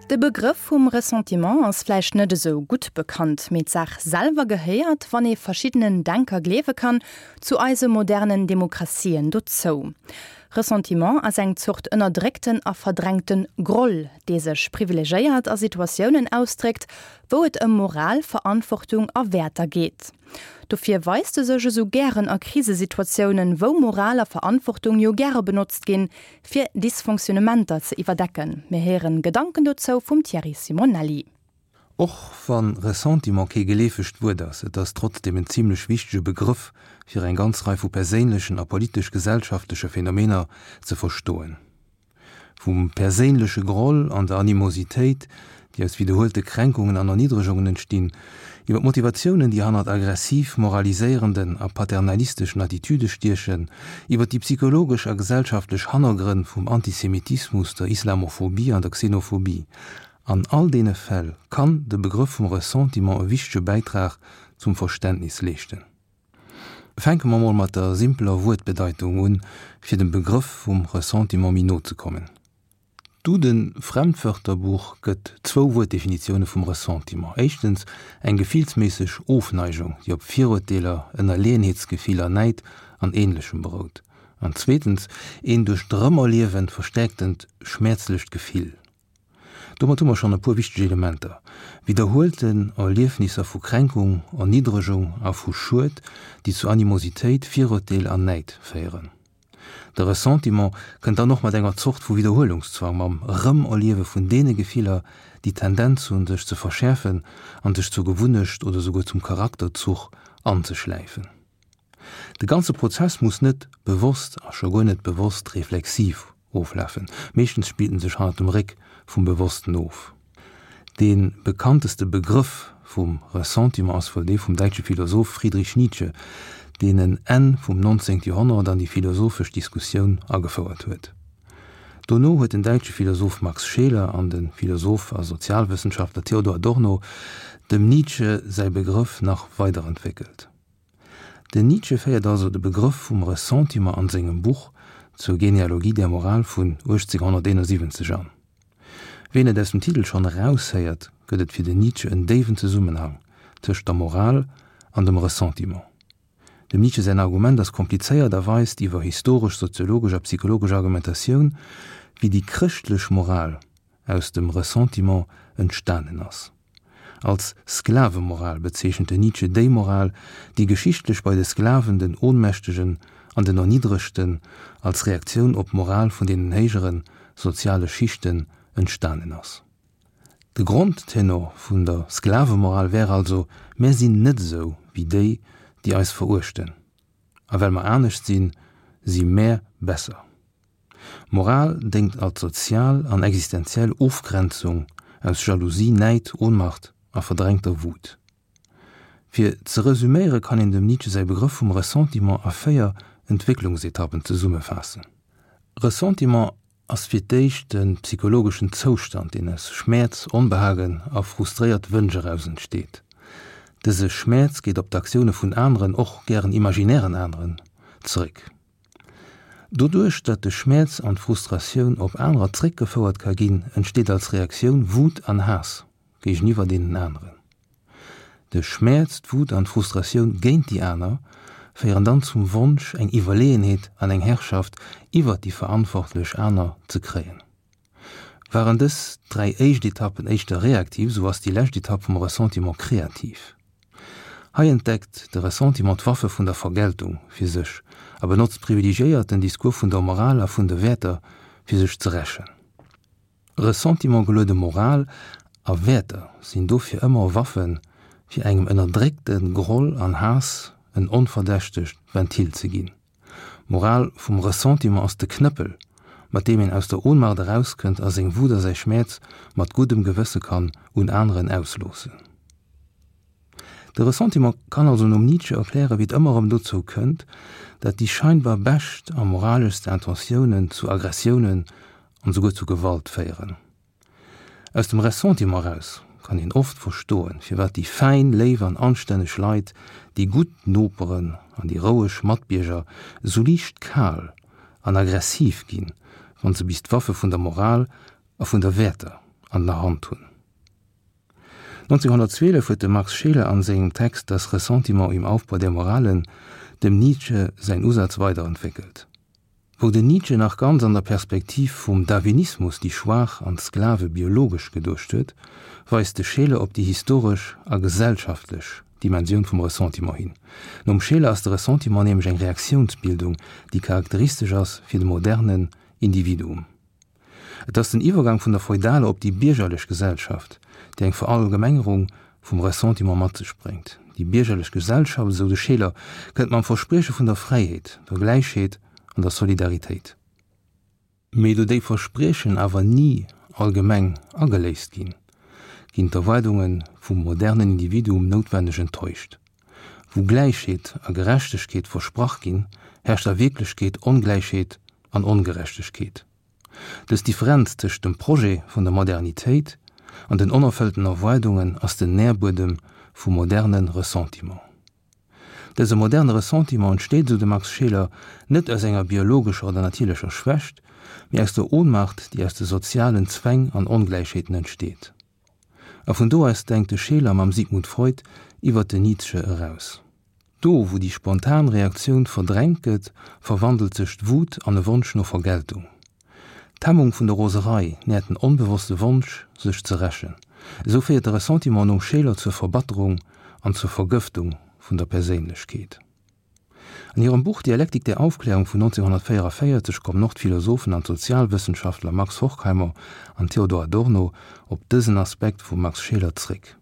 De Begrëff vum Ressentiment ass vläicht net esou gutt bekannt, mee d'Saach selwer gehéiert, wann ee verschiddenen Denker gleewe kann, zu eise modernen Demokratien dozou. Ressentiment ass eng Zort ënnerdréckten a verdrängte Groll, dee sech privilegéiert a Situatiounen ausdréckt, wou et ëm Moral, Verantwortung a Wäerter geet. Dofir weist e sech esou gären a Krisesituatiounen, wou Moral a Verantwortung jo gäre benotzt ginn, fir Dysfonctionnementer ze iwwerdecken. Mir héieren Gedanken dozou vum Thierry Simonelli. Och wann Ressentiment kee geleefegt Wuert ass, et ass trotzdeem en zimlech wichtege Begrëff fir eng ganz Rei vu perséinlechen a politesch-gesellschaftleche Phänomener ze verstoen. Vum perséinleche Groll an der Animositéit, déi aus widderhuelte Kränkungen an Erniddregungen entstinn, iwwer d'Motivatiounen, déi hannert aggressiv moraliséierenden a paternalisteschen Attitüde stiechen, iwwer déi psychologesch a gesellschaftlech Hannergrënn vum Antisemitismus, der Islamophobie an der Xenophobie. An all deene Fäll kann de Begrëff vum Ressentiment e wichtege Bäitrag zum Verständnis leeschten. Fänke mer mol mat der simpeler Wuertbedeitung un, fir dem Begrëff vum Ressentiment méi no ze kommen. D'Duden-Fremdwörterbuch gëtt zwou Wuertdefinitioune vum Ressentiment, éischtens eng gefillsméisseg Ofneigung, déi op Viruerteeler, Ënnerleeënheetsgefiller, Näid an Ähnlechem berout, an zweetens een duerch d'Erëmerliewen verstäerktent schmäerzlecht Gefill. Domat hu mer schonn e puer wichteg Elementer, widderhuelten Erliefnisser vu Kränkung, Erniddregung a vu Schued, déi zu Animositéit, Virurteel an Näid féieren. De Ressentiment kënnt dann och mat enger Zort vu Widderhuelungszwang, mam Erëmerliewe vun deene Gefiller, déi d'Tendenz hunn, sech ze verschäerfen an sech zur Gewunnecht oder souguer zum Charakterzuch anzeschläifen. De ganze Prozess muss net bewosst a scho guer net bewosst reflexiv oflafen, meeschtens spillt en sech hannert dem Réck vum Bewossten of. Dee bekannteste Begrëff vum Ressentiment ass wuel dee vum däitsche Philosoph Friedrich Nietzsche, deen en Enn vum 19. Joerhonnert an déi philosophesch Diskussioun agefouert huet. Dono huet den däitsche Philosoph Max Scheler an de Philosoph a Sozialwëssenschaftler Theodor Adorno dem Nietzsche säi Begrëff nach weiderentwéckelt. Den Nietzsche féiert also de Begrëff vum Ressentiment an sengem Buch Zur Genealogie der Moral vun 1871 an. Wéi een et aus dem Titel schonn eraushéiert, gëtt et fir den Nietzsche en déiwen Zesummenhang tëscht der Moral an dem Ressentiment. Dem Nietzsche säin Argument ass komplizéiert a weist iwwer historesch, soziologesch a psychologesch Argumentatioun, wéi déi chrëschtlech Moral aus dem Ressentiment entstanen ass. Als Sklavemoral bezeechent den Nietzsche déi Moral, déi geschichtlech bei de Sklaven, den Ohnmächtegen an den Erniddregten als Reaktioun op d'Moral vun deenen héijere soziale Schichten entstanen ass. De Grondtenor vun der Sklavemoral wär also, Mär sinn net esou wéi déi, déi eis veruechten, a well mer anescht sinn, si mär besser. Moral déngt als sozial an existenziell Ofgrenzung aus Jalousie, Näid, Ohnmacht a verdrängter Wut. Fir ze resüméiere kann een dem Nietzsche säi Begrëff vum Ressentiment a 4 Entwécklungsetappen zesummefaassen. Ressentiment ass fir d'éischt e psychologeschen Zoustand, deen aus Schmäerz, Onbehagen a frustréiert Wënsch eraus entsteet. Dëse Schmäerz geet op d'Aktioune vun aneren, och gären imaginären aneren, zeréck. Doduerch, datt de Schmäerz an d'Frustratioun op anerer zréckgefouert ka ginn, entsteet als Reaktioun Wut an Haass géigeniwwer deenen aneren. De Schmäerz, d'Wut an d'Frustratioun géint déi aner féieren dann zum Wonsch, eng Iwwerleeënheet an eng Herrschaft iwwert déi verantwortlech aner ze kréien. Waren dës 3 éischt Etappen éischter reaktiv, sou ass déi lescht Etapp vum Ressentiment kreativ. Hei entdeckt de Ressentiment d'Waffe vun der Vergeltung fir sech a benotzt privilegiéiert den Discours vun der Moral a vun de Wäerter fir sech ze rächen. Ressentiment-geluede Moral a Wäerter sinn dofir ëmmer Waffen, fir engem ënnerdréckte Groll an Haass en onverdächtegt Ventil ze ginn. D'Moral vum Ressentiment ass de Knëppel, mat deem een aus der Ohnmacht erauskënnt a seng Wut a säi Schmäerz mat guddem Gewësse kann un aneren ausloossen. De Ressentiment kann also nom Nietzsche erklären, wéi et ëmmer erëm dozou kënnt, dat déi scheinbar bescht a moraleschst Intentiounen zu Aggressiounen an esouguer zu Gewalt féieren. Aus dem Ressentiment eraus kann een oft verstoen, firwat déi fäin, léif an anstänneg Leit, déi gutt Noperen an déi roueg Matbierger esou liicht kal an aggressiv ginn, wann se bis d'Waffe vun der Moral a vun der Wäerter. an der Hand hunn. 1912 huet de Max Scheler an sengem Text Das Ressentiment im Aufbau der Moralen dem Nietzsche säin Usaz weiderentwéckelt. Wou den Nietzsche nach ganz an der Perspektiv vum Darwinismus déi Schwaach an d'Sklave biologesch geduecht huet, weist de Scheler op déi historesch a gesellschaftlech Dimensioun vum Ressentiment hin. Nom Scheler ass de Ressentiment nämlech eng Reaktiounsbildung, déi charakteristesch ass fir de modernen Individuum. Et ass den Iwwergang vun der feudaler op déi biergerlech Gesellschaft, déi eng Verallgemengerung vum Ressentiment mat sech bréngt. Déi biergerlech Gesellschaft, esou de Scheler, kënnt mam Versprieche vun der Fräiheet, der Gläichheet an der Solidaritéit. Mee do déi Verspriechen awer ni allgemeng ageléist ginn, ginn d'Erwaardunge vum modernen Individuum noutwenneg enttäuscht. Wou Gläichheet a Gerechtegkeet versprach ginn, herrscht a Wierklechkeet Ongläichheet an Ongerechtegkeet. Dës Differenz tëscht dem Projet vun der Modernitéit an den onerfëllten Erwaardungen ass den Nährbuedem vum moderne Ressentiment. Dëse moderne Ressentiment entsteet, esou de Max Scheler, net aus enger biologescher oder natierlecher Schwächt, mee aus der Ohnmacht, déi aus de sozialen Zwäng an Ongläichheeten entsteet. A vun do aus denkt de Scheler mam Sigmund Freud iwwert den Nietzsche eraus. Do, wou déi spontan Reaktioun verdrängt gëtt, verwandelt sech d'Wut an e Wonsch no Vergeltung. D'Hemmung vun der Roserei nährt den onbewosste Wonsch, sech ze rächen. Esou féiert de Ressentiment nom Scheler zur Verbatterung an zur Vergëftung vun der Perséinlechkeet. An hirem Buch Dialektik der Aufklärung vun 1944 kommen och d'Philosophen an d'Sozialwëssenschaftler Max Horkheimer an Theodor Adorno op dësen Aspekt vum Max Scheler zréck.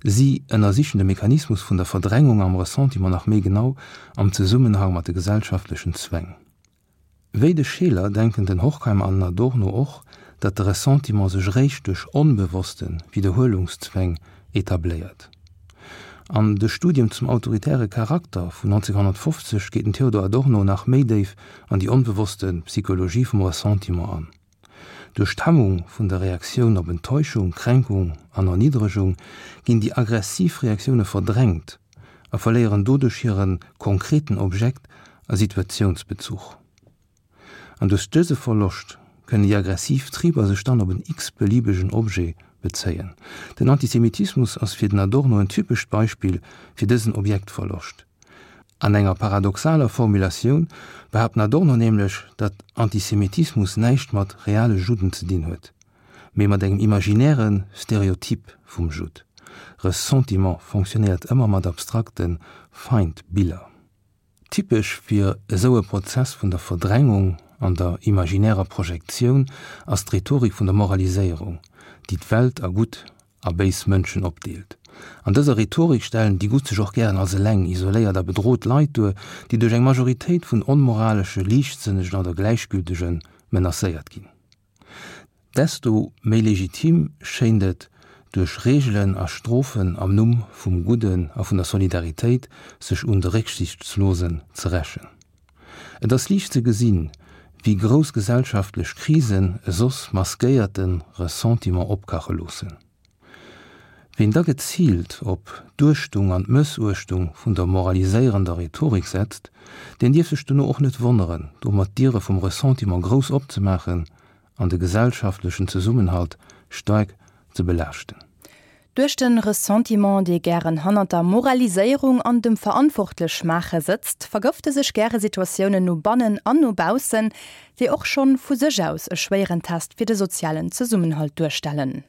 Si ënnersichen de Mechanismus vun der Verdrängung am Ressentiment nach méi genau am Zesummenhang mat de gesellschaftlechen Zwäng. Wéi de Scheler denken den Horkheimer an den Adorno och, datt de Ressentiment sech eréischt duerch onbewosste Widderhuelungszwäng etabléiert. An de Studium zum autoritäre Charakter vun 1950 geet den Theodor Adorno nach méi déif an déi onbewosste Psychologie vum Ressentiment an. Duerch d'Hemmung vun der Reaktioun op Enttäuschung, Kränkung an Erniddregung ginn déi aggressiv Reaktioune verdrängt a verléieren doduerch hire konkreten Objekt a Situatiounsbezuch. An duerch dëse Verloscht kënnen déi aggressiv Triber sech dann op en x-beliebegen Objet bezéien. Den Antisemitismus ass fir den Adorno en typescht Beispill fir dësen Objektverloscht. An enger paradoxaler Formulatioun behaapt den Adorno nämlech, datt Antisemitismus näischt mat reale Judden ze dinn huet, mee mat engem imaginäre Stereotyp vum Judd. Ressentiment fonctionnéiert ëmmer mat abstrakte Feindbiller. Typesch fir esou e Prozess vun der Verdrängung an der imaginärer Projektioun ass d'Rhetorik vun der Moraliséierung, déi d'Welt a gutt a béis Mënschen opdeelt. An dëser Rhetorik stellen déi Gutt sech och gären als eleng, isoléiert a bedrot Leit duer, déi duerch eng Majoritéit vun onmoralesche, liichtsënnegen oder Gläichgültege menacéiert ginn. Desto méi legitim schéint et, duerch Reegelen a Strofen am Numm vum Gudden a vun der Solidaritéit sech un de Récksichtslosen ze rächen. Et ass liicht ze gesinn, wéi grouss gesellschaftlech Krisen e soss maskéierte Ressentiment opkache loossen. Ween da geziilt op d'Uechtung an d'Mëssuechtung vun der moraliséierender Rhetorik setzt, deen dierf sech dono och net wonneren, domat d'Diere vum Ressentiment grouss opzemaachen an de gesellschaftlechen Zesummenhalt staark ze belaaschten. Duerch de Ressentiment, dee gären hannert der Moraliséierung an dem Verantwortlechmaache sëtzt, vergëfte sech gäre Situatiounen no bannen an no baussen, déi och schonn vu sech aus e schwéieren Test fir de sozialen Zesummenhalt duerstellen.